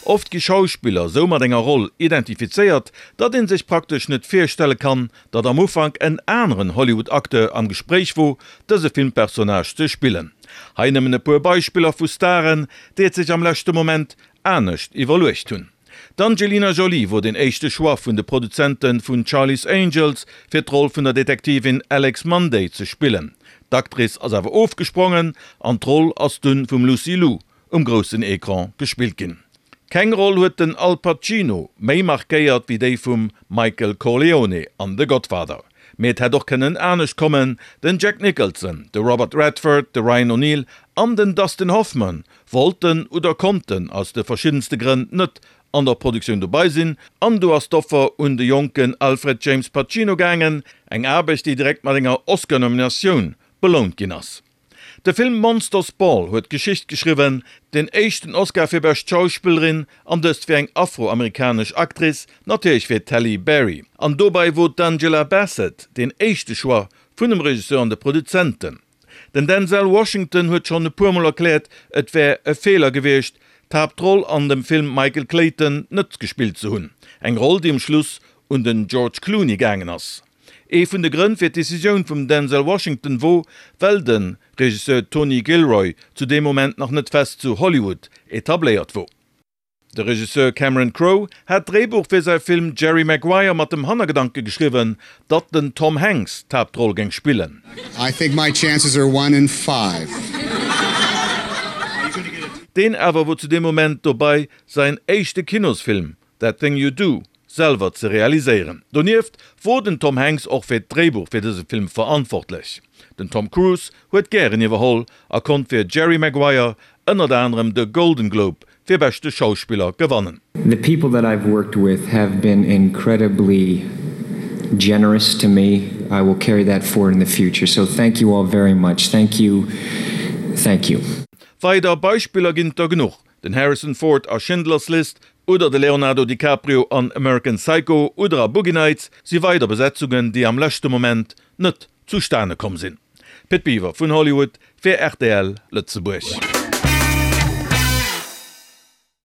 Oft gi Schauspiller sou mat enger Roll identifizéiert, datt een sech praktesch net virstelle kann, datt am Ufank en aneren Hollywood-Acteur am Gespréich wor, dëse Filmpersonnage ze spillen. Hei nëmmen e puer Beispiller vu Staren, déi et sech am leschte Moment anescht iwwerluecht hunn. D'Angelina Jolie wor den éischte Choix vun de Produzente vun Charlie's Angels, fir d'Roll vun der Detektivin Alex Munday ze spillen. D'Actrice ass awer ofgesprongen an d'Roll ass dunn vum Lucy Liu um groussen Ecran gespillt ginn. Keng Roll huet den Al Pacino méi markéiert wéi déi vum Michael Corleone an The Godfather. Mee et hätt och kënnen anescht kommen, den Jack Nicholson, de Robert Redford, de Ryan O'Neal an den Dustin Hoffman wollten oder konnten aus de verschiddenste Grënn net an der Produktioun dobei sinn an do ass d'Offer un de jonken Alfred James Pacino gaangen, eng Aarbecht déi direkt mat enger Oscar-Nominatioun belount ginn ass. De Film Monsters Ball huet Geschicht geschriwwen, den éischten Oscar fir bescht Schauspillerin, an dëst fir eng afroamerikanesch Actrice, natierlech fir d'Halle Berry. An dobei wor d'Angela Bassett deen éischte Choix vun dem Regisseur an de Produzenten. Den Denzel Washington huet schonn e puer Mol erkläert, et wär e Feeler gewiescht, d'Haaptroll an dem Film Michael Clayton net gespillt ze hunn, eng Roll déi um Schluss un den George Clooney gaangen ass. Ee vun de Grënn fir d'Decisioun vum Denzel Washington wor, well de Regisseur Tony Gilroy zu deem Moment nach net fest zu Hollywood etabléiert wor. De Regisseur Cameron Crowe hat d'Dréibuch fir säi Film Jerry Maguire mat dem Hannergedanke geschriwwen, datt den Tom Hanks d'Haaptroll géing spillen. I think my chances are one in five. Deen awer wor zu deem Moment dobei säin éischte Kinosfilm That Thing You Do selwer ze realiséieren. Donieft wor den Tom Hanks och fir d'Dréibuch fir dëse Film verantwortlech. Den Tom Cruise huet gären iwwerholl a konnt fir Jerry Maguire ënnert anerem de Golden Globe fir beschte Schauspiller gewannen. The people that I've worked with have been incredibly generous to me. I will carry that forward in the future. So thank you all very much. Thank you. Thank you. Weider Beispiller ginn et der genuch, Den Harrison Ford a Schindler's List oder de Leonardo DiCaprio an American Psycho oder a Boogie Nights si weider Besetzungen, déi am leschte Moment net zustane komm sinn. Pit Biwer vun Hollywood fir rtl Lëtzebuerg.